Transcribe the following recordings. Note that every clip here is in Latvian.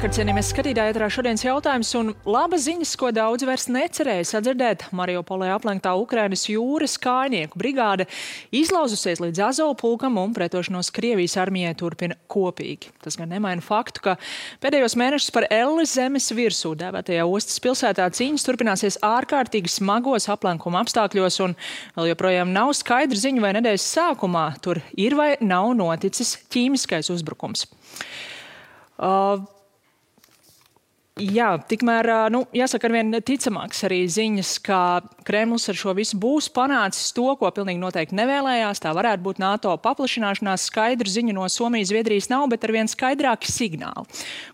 Labvakar, cienījamies skatītāji, ēterā šodienas jautājums un labas ziņas, ko daudz vairs necerēja sadzirdēt. Mariupolē aplenktā Ukrainas jūras kājnieku brigāde izlauzusies līdz Azovu pulkam un pretošanos Krievijas armijai turpina kopīgi. Tas gan nemaina faktu, ka pēdējos mēnešus par Elles zemes virsū dēvētajā ostas pilsētā cīņas turpināsies ārkārtīgi smagos aplenkuma apstākļos un vēl joprojām nav skaidra ziņa, vai nedēļas sākumā tur ir vai nav noticis ķīmiskais uzbrukums. Jā, tikmēr, jāsaka arvien ticamāks arī ziņas, ka Kremlis ar šo visu būs panācis to, ko pilnīgi noteikti nevēlējās. Tā varētu būt NATO paplašināšanās. Skaidru ziņu no Somijas, Zviedrijas nav, bet arvien skaidrāki signāli.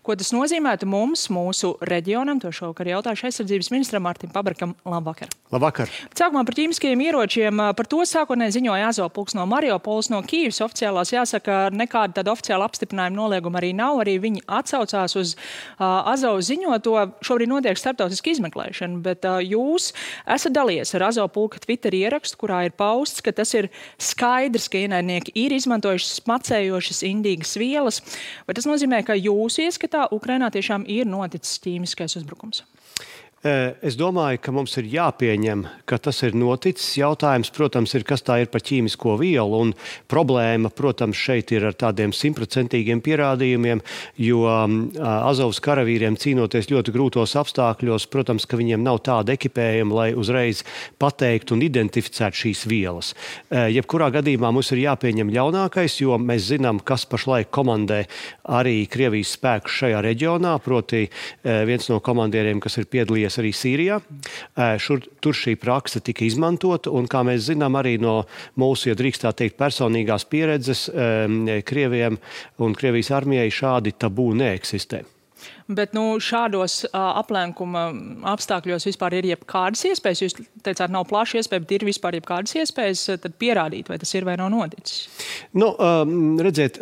Ko tas nozīmētu mums, mūsu reģionam? To šovakar jautāšu aizsardzības ministram Mārtim Pabrakam. Labvakar. Labvakar. Sākumā par ķīmiskajiem ieročiem. Par to sākotnēji ziņoja Azovu pulks no Mariupoles, no Kīivas oficiālās. Jāsaka, nekāda tāda oficiāla apstiprinājuma nolieguma arī nav. Arī viņi atsaucās uz Azovu ziņoto. Šobrīd notiek starptautiska izmeklēšana, bet jūs esat dalījies ar Azovu pulka Twitter ierakstu, kurā ir pausts, ka tas ir skaidrs, ka ienaidnieki ir izmantojuši smacējošas indīgas vielas. Vai tas nozīmē, ka jūsu ieskatā Ukrainā tiešām ir noticis ķīmiskais uzbrukums? Es domāju, ka mums ir jāpieņem, ka tas ir noticis. Jautājums, protams, ir, kas tā ir par ķīmisko vielu. Un problēma, protams, šeit ir ar tādiem 100% pierādījumiem, jo Azovas karavīriem cīnoties ļoti grūtos apstākļos, protams, ka viņiem nav tāda ekipējuma, lai uzreiz pateiktu un identificētu šīs vielas. Jebkurā gadījumā mums ir jāpieņem ļaunākais, jo mēs zinām, kas pašlaik komandē arī Krievijas spēkus šajā reģionā, proti viens no komandieriem, kas ir piedalījies arī Sīrijā. Tur šī prakse tika izmantota, un kā mēs zinām arī no mūsu, ja drīkst tā teikt, personīgās pieredzes, Krieviem un Krievijas armijai šādi tabū neeksistē. Bet šādos aplenkuma apstākļos vispār ir jebkādas iespējas? Jūs teicāt, nav plaša iespēja, bet ir vispār jebkādas iespējas tad pierādīt, vai tas ir vai nav noticis? Redziet,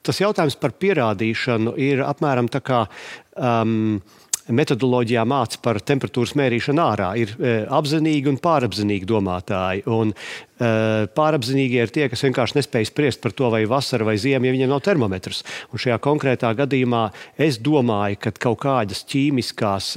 tas jautājums par pierādīšanu ir apmēram tā kā metodoloģijā māca par temperatūras mērīšanu ārā. Ir apzinīgi un pārapzinīgi domātāji. Un pārapzinīgie ir tie, kas vienkārši nespēj spriest par to, vai vasara vai ziema, ja viņiem nav termometrs. Un šajā konkrētā gadījumā es domāju, ka kaut kādas ķīmiskās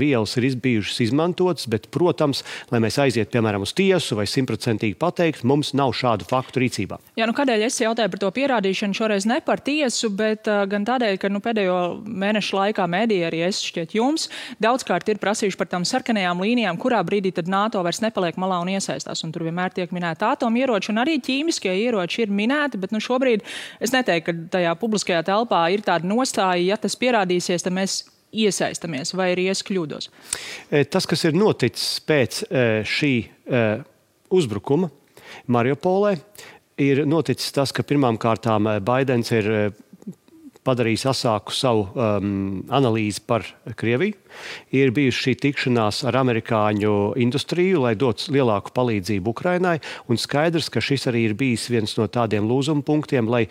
vielas ir bijušas izmantotas, bet, protams, lai mēs aiziet, piemēram, uz tiesu vai 100% pateikt, mums nav šādu faktu rīcībā. Jā, kādēļ es jautāju par to pierādīšanu šoreiz ne par tiesu, bet gan tādēļ, ka pēdējo mēnešu laikā mediji arī es šķiet jums daudzkārt ir prasījuši par tām sarkanajām līnijām, kurā brīdī tad NATO vairs nepaliek malā un iesaistās. Un tur vienmēr tiek minēti atomieroči un arī ķīmiskie ieroči ir minēti, bet šobrīd es neteiktu, ka tajā publiskajā telpā ir tāda nostāja, ja tas pierādīsies, tad mēs iesaistamies, vai arī es kļūdos. Tas, kas ir noticis pēc šī uzbrukuma Mariupolē, ir noticis tas, ka pirmām kārtām Baidens ir padarījis asāku savu analīzi par Krieviju. Ir bijusi šī tikšanās ar amerikāņu industriju, lai dotu lielāku palīdzību Ukrainai. Un skaidrs, ka šis arī ir bijis viens no tādiem lūzuma punktiem, lai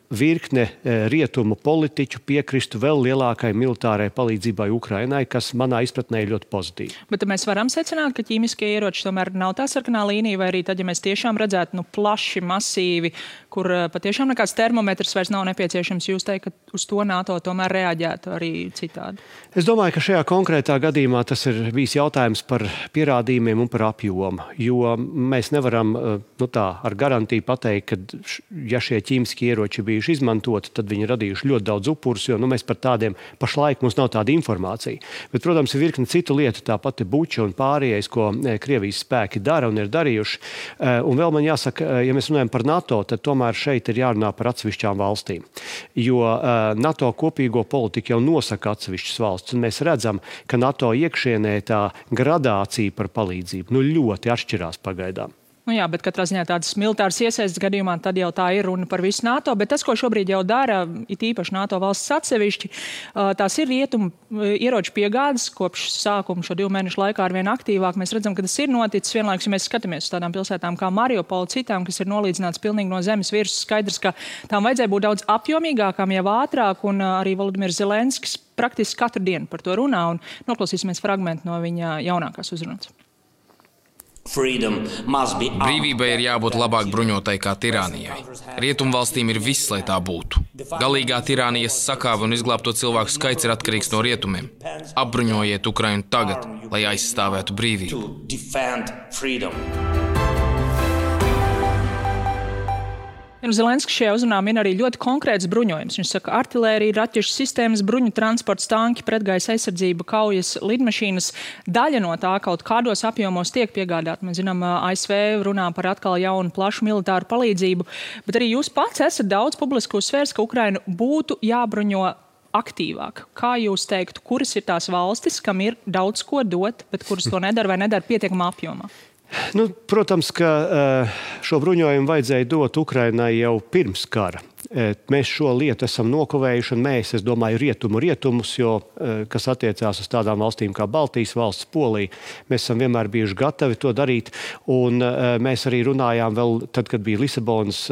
virkne rietumu politiķu piekristu vēl lielākai militārai palīdzībai Ukrainai, kas manā izpratnē ir ļoti pozitīvi. Bet mēs varam secināt, ka ķīmiskie ieroči tomēr nav tā sarkanā līnija, vai arī tad, ja mēs tiešām redzētu plaši, masīvi, kur patiešām nekāds termometrs vairs nav nepieciešams, jūs teikt, ka uz to NATO tomēr reaģētu arī citādi? Es domāju, ka šajā konkrētā gadījumā tas ir bijis jautājums par pierādījumiem un par apjomu, jo mēs nevaram ar garantiju pateikt, ka ja šie ķīmiskie ieroči bijuši izmantoti, tad viņi radījuši ļoti daudz upurus, jo mēs par tādiem pašlaik mums nav tāda informācija. Bet, protams, ir virkne citu lietu, tāpat ir Buča un pārējais, ko Krievijas spēki dara un ir darījuši. Un vēl man jāsaka, ja mēs runājam par NATO, tad tomēr šeit ir jārunā par atsevišķām valstīm. Jo NATO kopīgo politiku jau nosaka atsevišķas valsts, un mēs redzam, ka NATO iekšienē tā gradācija par palīdzību ļoti atšķirās pagaidām. Jā, bet katrā ziņā tādas militāras iesaistas gadījumā tad jau tā ir runa par visu NATO, bet tas, ko šobrīd jau dara, it īpaši NATO valsts atsevišķi, tās ir rietumu ieroču piegādes kopš sākuma šo 2 mēnešu laikā arvien aktīvāk. Mēs redzam, ka tas ir noticis vienlaikus, ja mēs skatāmies uz tādām pilsētām kā Mariupola, citām, kas ir nolīdzināts pilnīgi no zemes virsmas. Skaidrs, ka tām vajadzēja būt daudz apjomīgākām, jau ātrāk, un arī Volodimirs Zelenskis praktiski katru dienu par to runā, un noklausīsimies fragmentu no viņa jaunākās uzrunas. Brīvībai ir jābūt labāk bruņotai kā tirānijai. Rietumvalstīm ir viss, lai tā būtu. Galīgā tirānijas sakāve un izglābto cilvēku skaits ir atkarīgs no rietumiem. Apbruņojiet Ukrainu tagad, lai aizstāvētu brīvību. Zelenskis šajā uzrunā min arī ļoti konkrēts bruņojums. Viņš saka, artilērija, raķešu sistēmas, bruņu transports, tanki, pretgaisa aizsardzība, kaujas lidmašīnas. Daļa no tā kaut kādos apjomos tiek piegādāta. Mēs zinām, ASV runā par atkal jaunu plašu militāru palīdzību, bet arī jūs pats esat daudz publiski uzsvērs, ka Ukrainu būtu jābruņo aktīvāk. Kā jūs teiktu, kuras ir tās valstis, kam ir daudz ko dot, bet kuras to nedara vai nedara pietiekamā apjomā? Protams, ka šo bruņojumu vajadzēja dot Ukrainai jau pirms kara. Mēs šo lietu esam nokavējuši, un es domāju, rietumus, jo, kas attiecās uz tādām valstīm kā Baltijas valsts, Polija, mēs esam vienmēr bijuši gatavi to darīt, un mēs arī runājām vēl tad, kad bija Lisabonas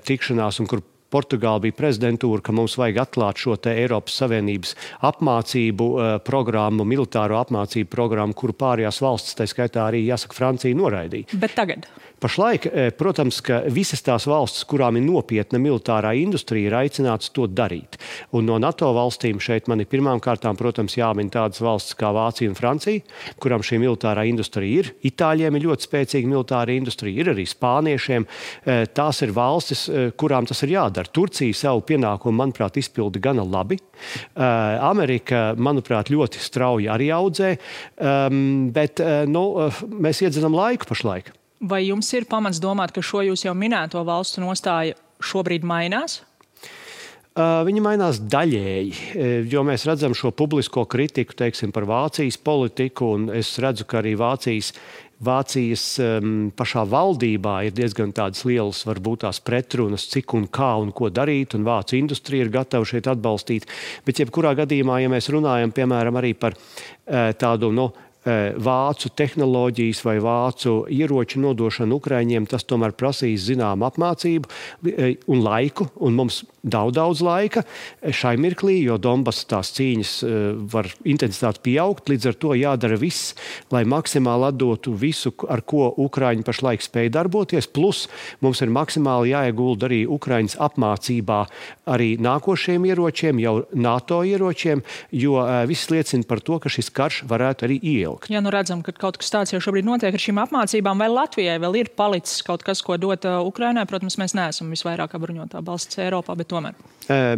tikšanās, un kur Portugāla bija prezidentūra, ka mums vajag atklāt šo te Eiropas Savienības apmācību programmu, militāro apmācību programmu, kuru pārējās valstis, tā skaitā arī, jāsaka, Francija noraidīja. Bet tagad? Pašlaik, protams, ka visas tās valstis, kurām ir nopietna militārā industrija, ir aicināts to darīt. Un no NATO valstīm šeit man ir pirmām kārtām, protams, jāmin tādas valstis kā Vācija un Francija, kurām šī militārā industrija ir. Itāļiem ir ļoti spēcīga militāra industrija, ir arī spāniešiem. Tās ir valstis, kurām tas ir jādara. Turcija savu pienākumu, manuprāt, izpilda gana labi. Amerika, manuprāt, ļoti strauji arī audzē, bet mēs iedzenam laiku pašlaik. Vai jums ir pamats domāt, ka šo jūs jau minēto valstu nostāja šobrīd mainās? Viņi mainās daļēji, jo mēs redzam šo publisko kritiku, teiksim, par Vācijas politiku, un es redzu, ka arī Vācijas pašā valdībā ir diezgan tādas lielas, varbūt tās pretrunas, cik un kā un ko darīt, un vācu industrija ir gatava šeit atbalstīt. Bet jebkurā gadījumā, ja mēs runājam, piemēram, arī par tādu, vācu tehnoloģijas vai vācu ieroču nodošanu Ukraiņiem, tas tomēr prasīs zinām apmācību un laiku, un mums daudz laika šai mirklī, jo Donbas tās cīņas var intensitāti pieaugt, līdz ar to jādara viss, lai maksimāli atdotu visu, ar ko Ukraiņi pašlaik spēj darboties, plus mums ir maksimāli jāiegulda arī Ukraiņas apmācībā arī nākošiem ieročiem, jau NATO ieročiem, jo viss liecina par to, ka šis karš varētu arī ieilgt. Ja redzam, ka kaut kas tāds jau šobrīd notiek ar šīm apmācībām, vai Latvijai vēl ir palicis kaut kas, ko dot Ukrainai? Protams, mēs neesam visvairāk bruņotā valsts Eiropā, bet tomēr.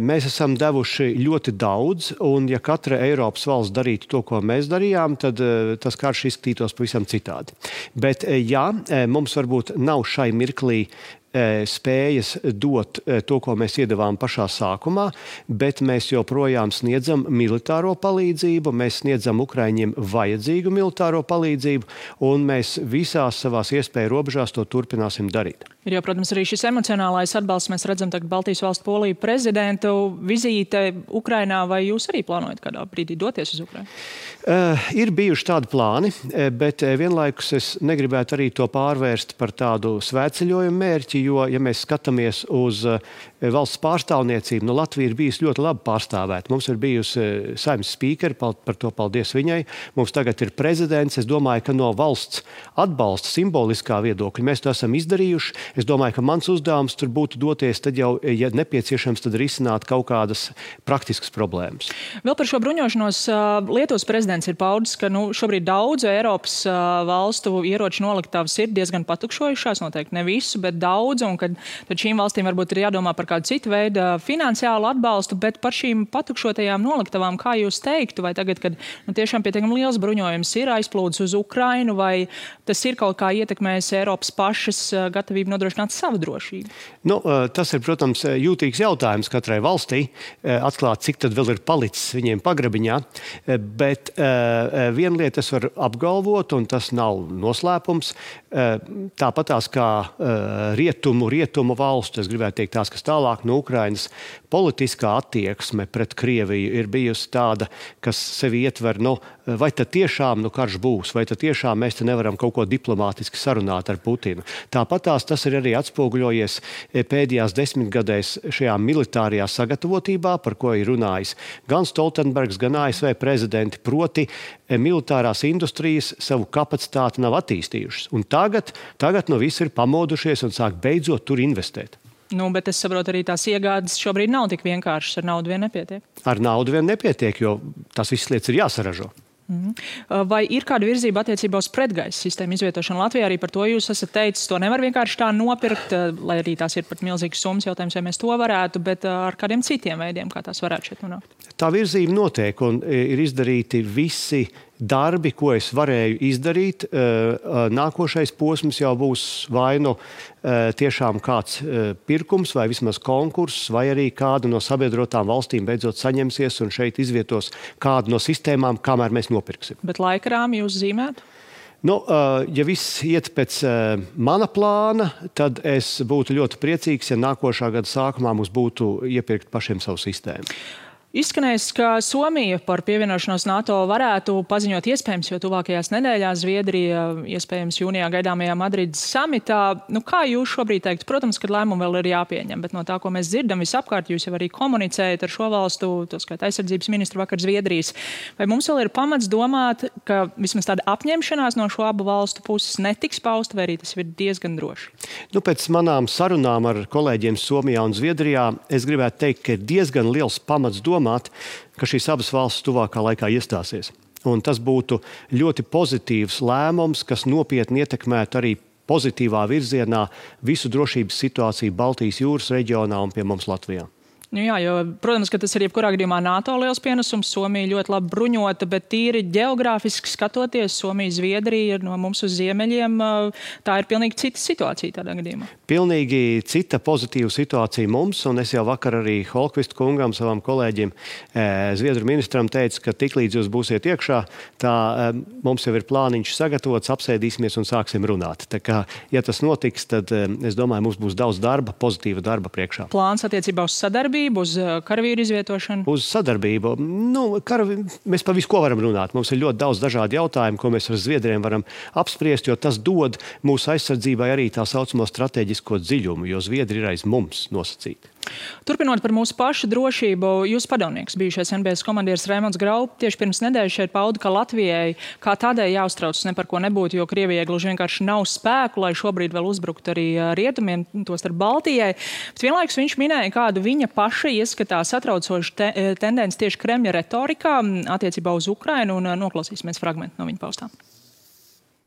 Mēs esam devuši ļoti daudz, un ja katra Eiropas valsts darītu to, ko mēs darījām, tad tas karš izskatītos pavisam citādi. Bet jā, mums varbūt nav šai mirklī spējas dot to, ko mēs iedavām pašā sākumā, bet mēs joprojām sniedzam militāro palīdzību, mēs sniedzam Ukraiņiem vajadzīgu militāro palīdzību, un mēs visās savās iespēju robežās to turpināsim darīt. Ir jau, protams, arī šis emocionālais atbalsts. Mēs redzam tagad Baltijas valstu Poliju prezidentu vizīte Ukrainā, vai jūs arī plānojat kādā brīdī doties uz Ukrainu? Ir bijuši tādi plāni, bet vienlaikus es negribētu arī to pārvērst par tādu svētceļojumu mērķi, jo, ja mēs skatāmies uz valsts pārstāvniecību, Latvija ir bijusi ļoti labi pārstāvēta. Mums ir bijusi saimnes spīkeri, par to paldies viņai. Mums tagad ir prezidents. Es domāju, ka no valsts atbalsta simboliskā viedokļa mēs to esam izdarījuši. Es domāju, ka mans uzdevums tur būtu doties, tad jau, ja nepieciešams, tad risināt kaut kādas praktiskas problēmas. Vēl par šo bruņošanos Lietuvas prezidents ir paudis, ka šobrīd daudzu Eiropas valstu ieroču noliktavas ir diezgan patukšojušās, noteikti ne visu, bet daudz, un kad šīm valstīm varbūt ir jādomā par kādu citu veidu finansiālu atbalstu, bet par šīm patukšotajām noliktavām, kā jūs teiktu, vai tagad, kad tiešām pietiekami liels bruņojums ir aizplūdis uz Ukrainu, vai tas ir kaut kā ietekmējis Eiropas pašas gatavību nodrošināt savu drošību? Tas ir, protams, jūtīgs jautājums katrai valstī, atklāt, cik tad vēl ir palicis viņiem pagrabiņā, bet viena lieta es varu apgalvot, un tas nav noslēpums, tāpatās kā rietumu valstu, es gribētu teikt tās, kas tālāk tālāk no Ukrainas. Politiskā attieksme pret Krieviju ir bijusi tāda, kas sevi ietver, vai tad tiešām karš būs, vai tad tiešām mēs te nevaram kaut ko diplomātiski sarunāt ar Putinu. Tāpatās tas ir arī atspoguļojies pēdējās 10 gadēs šajā militārajā sagatavotībā, par ko ir runājis gan Stoltenbergs, gan ASV prezidenti, proti militārās industrijas savu kapacitāti nav attīstījušas. Un tagad visi ir pamodušies un sāk beidzot tur investēt. Bet es saprotu, arī tās iegādes šobrīd nav tik vienkāršas, ar naudu vien nepietiek. Ar naudu vien nepietiek, jo tās visas lietas ir jāsaražo. Vai ir kāda virzība attiecībā uz pretgaisa sistēmu izvietošanu Latvijā? Arī par to jūs esat teicis, to nevar vienkārši tā nopirkt, lai arī tās ir pat milzīgas summas, jautājums, vai mēs to varētu, bet ar kādiem citiem veidiem, kā tās varētu šeit nonākt? Tā virzība notiek un ir izdarīti visi darbi, ko es varēju izdarīt. Nākošais posms jau būs vai tiešām kāds pirkums vai vismaz konkurss, vai arī kāda no sabiedrotām valstīm beidzot saņemsies un šeit izvietos kādu no sistēmām, kamēr mēs nopirksim. Bet laikrāmi jūs zīmētu? Ja viss iet pēc mana plāna, tad es būtu ļoti priecīgs, ja nākošā gada sākumā mums būtu iepirkt pašiem savu sistēmu. Izskanējis, ka Somija par pievienošanos NATO varētu paziņot iespējams, jo tuvākajās nedēļās Zviedrija iespējams jūnijā gaidāmajā Madrides samitā. Kā jūs šobrīd teikt? Protams, ka lēmumi vēl ir jāpieņem, bet no tā, ko mēs dzirdam visapkārt, jūs jau arī komunicējat ar šo valstu, to skaitā aizsardzības ministru vakar Zviedrijas. Vai mums vēl ir pamats domāt, ka vismaz tāda apņemšanās no šo abu valstu puses netiks pausta, vai arī tas ir diezgan droši? Pēc manām sarunām ar kolēģiem Somijā un Zviedrijā es gribētu teikt, ka ir diezgan liels pamats domāt, ka šīs abas valstis tuvākā laikā iestāsies. Un tas būtu ļoti pozitīvs lēmums, kas nopietni ietekmētu arī pozitīvā virzienā visu drošības situāciju Baltijas jūras reģionā un pie mums Latvijā. Jā, jo, protams, ka tas ir jebkurā gadījumā NATO liels pienesums. Somija ļoti labi bruņota, bet tīri ģeogrāfiski skatoties, Somija, Zviedrija ir no mums uz ziemeļiem. Tā ir pilnīgi cita situācija tādā gadījumā. Pilnīgi cita pozitīva situācija mums, un es jau vakar arī Holkvist kungam, savam kolēģim, Zviedru ministram teicu, ka tiklīdz jūs būsiet iekšā, tā mums jau ir plāniņš sagatavots, apsēdīsimies un sāksim runāt. Tā kā, ja tas notiks, tad es domāju, mums būs daudz darba, pozitīva darba priekšā. Plāns attiecībā uz sadarbību, uz karavīru izvietošanu? Uz sadarbību. Mēs par visu ko varam runāt. Mums ir ļoti daudz dažādu jautājumu, ko mēs ar Zviedriem varam apspriest, jo tas dod mūsu aizsardzībai arī tā saucamo strateģisko dziļumu, jo Zviedri ir aiz mums nosacīti. Turpinot par mūsu pašu drošību, jūsu padomnieks, bijušais NBS komandieris Raimonds Graup, tieši pirms nedēļas šeit pauda, ka Latvijai kā tādai jāuztraucas ne par ko nebūtu, jo Krievijai gluži vienkārši nav spēku, lai šobrīd vēl uzbruktu arī rietumiem, tostarp Baltijai. Bet vienlaikus viņš minēja kādu viņa paša ieskatā satraucošu tendenci tieši Kremļa retorikā attiecībā uz Ukrainu, un noklausīsimies fragmentu no viņa paustām.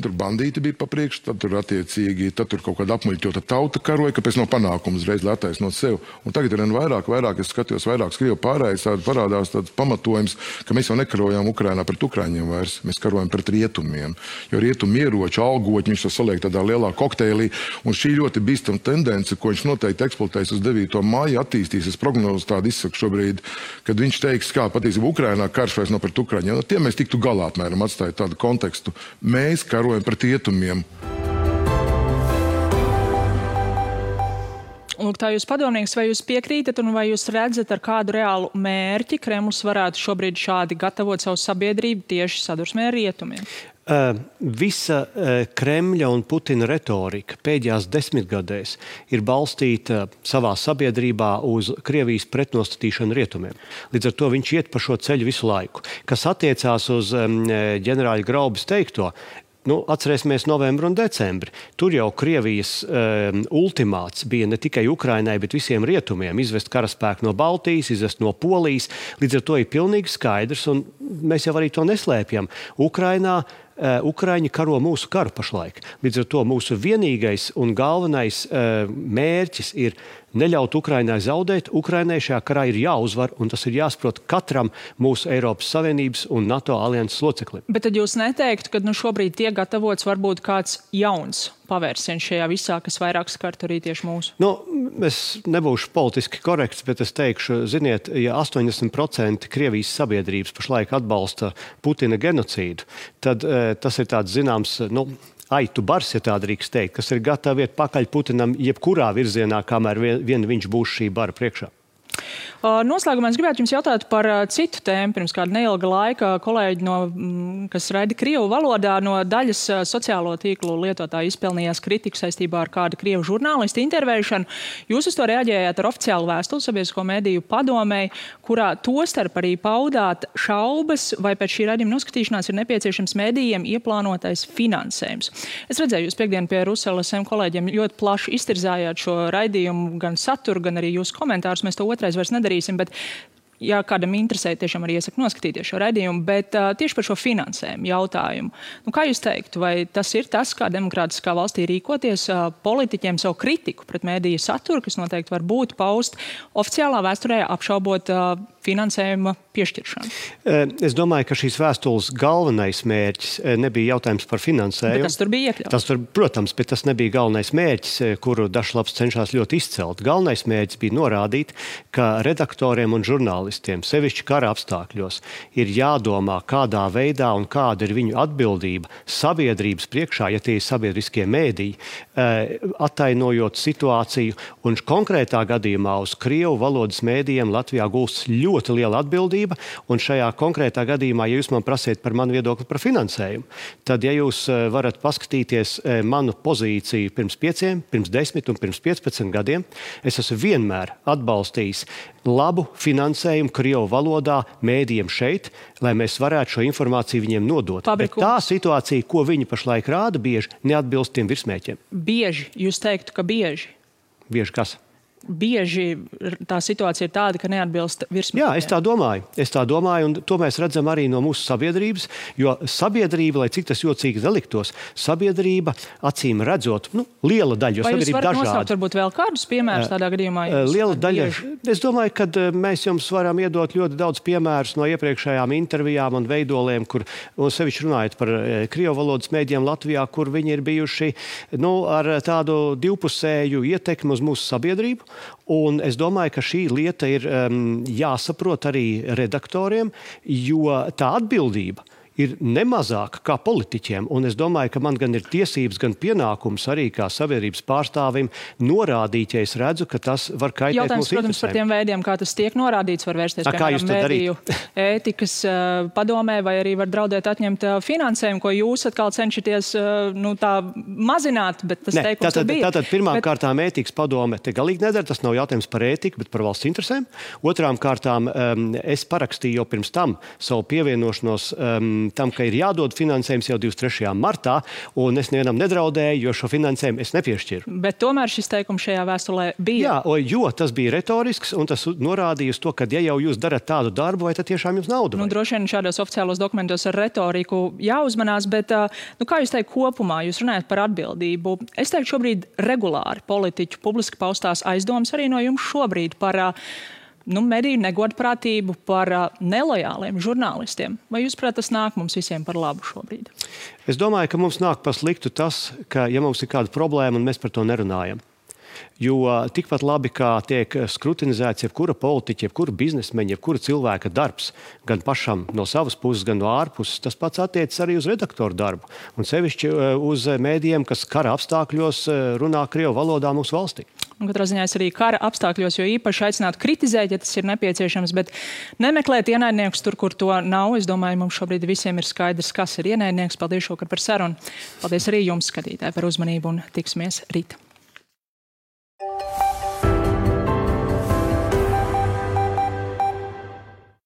Tur bandīti bija pa priekšu, tad tur kaut kāda apmuļķota tauta karoja, kāpēc nav panākumu uzreiz, lai attaisnot sev. Un tagad ir vairāk, es skatījos vairāk Krievu pārējais, parādās tāds pamatojums, ka mēs jau nekarojām Ukrainā pret Ukraiņiem vairs, mēs karojam pret rietumiem. Jo rietumu ieroči, algoķi, viņš to saliek tādā lielā kokteilī, un šī ļoti bīstama tendence, ko viņš noteikti eksploatēs uz 9. māju, attīstīsies prognozi tādu izsaku šobrīd, kad viņš teiks, kā patiesībā Ukrainā karš vairs nav pret Ukraiņiem. No tiem mēs tiktu galā, apmēram, atstājot tādu kontekstu. Mēs karojam pret rietumiem. Lūk, tā jūs padomnieks, vai jūs piekrītat un vai jūs redzat, ar kādu reālu mērķi Kremlis varētu šobrīd šādi gatavot savu sabiedrību tieši sadursmē ar rietumiem? Visa Kremļa un Putina retorika pēdējās 10 gadēs ir balstīta savā sabiedrībā uz Krievijas pretnostatīšanu rietumiem. Līdz ar to viņš iet pa šo ceļu visu laiku. Kas attiecās uz ģenerāļa Graubas teikto, atcerēsimies novembru un decembri. Tur jau Krievijas ultimāts bija ne tikai Ukrainai, bet visiem rietumiem izvest karaspēku no Baltijas, izvest no Polijas. Līdz ar to ir pilnīgi skaidrs, un mēs jau arī to neslēpjam. Ukraiņi karo mūsu karu pašlaik. Līdz ar to mūsu vienīgais un galvenais mērķis ir neļaut Ukrainai zaudēt. Ukrainai šajā karā ir jāuzvar, un tas ir jāsaprot katram mūsu Eiropas Savienības un NATO alianses loceklim. Bet tad jūs neteiktu, ka šobrīd tiek gatavots varbūt kāds jauns pavērsiens šajā visā, kas vairāk skart arī tieši mūsu? Es nebūšu politiski korekts, bet es teikšu, ziniet, ja 80% Krievijas sabiedrības pašlaik atbalsta Putina genocīdu, tad tas ir tāds zināms, aitu bars, ja tā drīkst teikt, kas ir gatavi iet pakaļ Putinam jebkurā virzienā, kamēr vien viņš būs šī bara priekšā. Noslēgumā es gribētu jums jautāt par citu tēmu. Pirms kāda neilga laika kolēģi, kas raida krievu valodā, no daļas sociālo tīklu lietotāju izpelnījās kritiku saistībā ar kādu krievu žurnālistu intervēšanu. Jūs uz to reaģējāt ar oficiālu vēstuli Sabiedrisko mediju padomei, kurā tostarp arī paudāt šaubas, vai pēc šī raidījuma noskatīšanās ir nepieciešams medijiem ieplānotais finansējums. Es redzēju, jūs piekdien pie Ruselas kolēģiem ļoti plaši iztirzājāt šo raidījumu, gan saturu, gan arī jūsu komentārus. Mēs to otrais vairs nedarīsim, bet ja kādam interesē, tiešām arī iesaku noskatīties šo raidījumu, bet tieši par šo finansējumu jautājumu. Kā jūs teiktu, vai tas ir tas, kā demokrātiskā valstī rīkoties politiķiem savu kritiku pret mēdīju saturu, kas noteikti var būt paust oficiālā vēsturē apšaubot finansējuma piešķiršanu? Es domāju, ka šīs vēstules galvenais mērķis nebija jautājums par finansējumu. Bet tas tur bija iekļauts. Protams, bet tas nebija galvenais mērķis, kuru Dažlaps cenšas ļoti izcelt. Galvenais mērķis bija norādīt, ka redaktoriem un žurnālistiem, sevišķi kara apstākļos, ir jādomā, kādā veidā un kāda ir viņu atbildība sabiedrības priekšā, ja tie ir sabiedriskie mēdīji, attainojot situāciju. Un konkrētā gadījumā uz krievu valodas mēdījiem Latvijā gulstas ļoti liela atbildība, un šajā konkrētā gadījumā, ja jūs man prasiet par manu viedokli par finansējumu, tad, ja jūs varat paskatīties manu pozīciju pirms 5, pirms 10 un pirms 15 gadiem, es esmu vienmēr atbalstījis labu finansējumu krievu valodā mēdījiem šeit, lai mēs varētu šo informāciju viņiem nodot. Bet tā situācija, ko viņi pašlaik rāda, bieži neatbilst tiem virsmēķiem. Bieži? Jūs teiktu, ka bieži? Bieži kas? Bieži tā situācija ir tāda, ka neatbilst virsmēķiem. Jā, es tā domāju, un to mēs redzam arī no mūsu sabiedrības, jo sabiedrība, lai cik tas jocīgi neliktos, sabiedrība acīm redzot, liela daļa, jo sabiedrība dažāda. Vai jūs varat nosaukt varbūt vēl kādus piemērus tādā gadījumā? Liela daļa. Es domāju, ka mēs jums varam iedot ļoti daudz piemērus no iepriekšējām intervijām un veidoliem, kur, un sevišķi runājot par krievu valodas mēdījiem Latvijā, kur viņi ir bijuši ar tādu divpusēju ietekmi uz mūsu sabiedrību. Un es domāju, ka šī lieta ir jāsaprot arī redaktoriem, jo tā atbildība ir nemazāka kā politiķiem. Un es domāju, ka man gan ir tiesības, gan pienākums arī kā sabiedrības pārstāvim norādīt, ja es redzu, ka tas var kaitēt mūsu interesēm. Protams, par tiem veidiem, kā tas tiek norādīts, var vērsties, piemēram, mediju ētikas padomē, vai arī var draudēt atņemt finansējumu, ko jūs atkal cenšaties tā mazināt, bet tas teikums bija. Tātad pirmām kārtām ētikas padome te galīgi nedara, tas nav jautājums par ētiku, bet par valsts interesēm. Otrām kārtām es parakstīju jau pirms tam savu pievienošanos tam, ka ir jādod finansējums jau 23. martā, un es nevienam nedraudēju, jo šo finansējumu es nepiešķiru. Bet tomēr šis teikums šajā vēstulē bija. Jā, jo tas bija retorisks, un tas norādīja uz to, ka ja jau jūs darat tādu darbu, vai tad tiešām jums nauda vajag? Droši vien šādos oficiālos dokumentos ar retoriku jāuzmanās, bet kā jūs teikt kopumā, jūs runājat par atbildību. Es teiktu šobrīd regulāri politiķu publiski paustās aizdomas arī no jums šobrīd par mediju negodprātību, par nelojāliem žurnālistiem. Vai jūs prāt, tas nāk mums visiem par labu šobrīd? Es domāju, ka mums nāk par sliktu tas, ka ja mums ir kāda problēma un mēs par to nerunājam. Jo tikpat labi, kā tiek skrutinizēts jebkura politiķa, jebkura biznesmeņa, jebkura cilvēka darbs, gan pašam no savas puses, gan no ārpuses, tas pats attiecas arī uz redaktoru darbu. Un sevišķi uz mēdījiem, kas kara apstākļos runā krievu valodā mūsu valstī. Un katrā ziņā es arī kara apstākļos, jo īpaši aicinātu kritizēt, ja tas ir nepieciešams, bet nemeklēt ienaidniekus tur, kur to nav. Es domāju, mums šobrīd visiem ir skaidrs, kas ir ienaidnieks. Paldies šokar par sarunu. Paldies arī jums, skatītāji, par uzmanību un tiksimies rīt.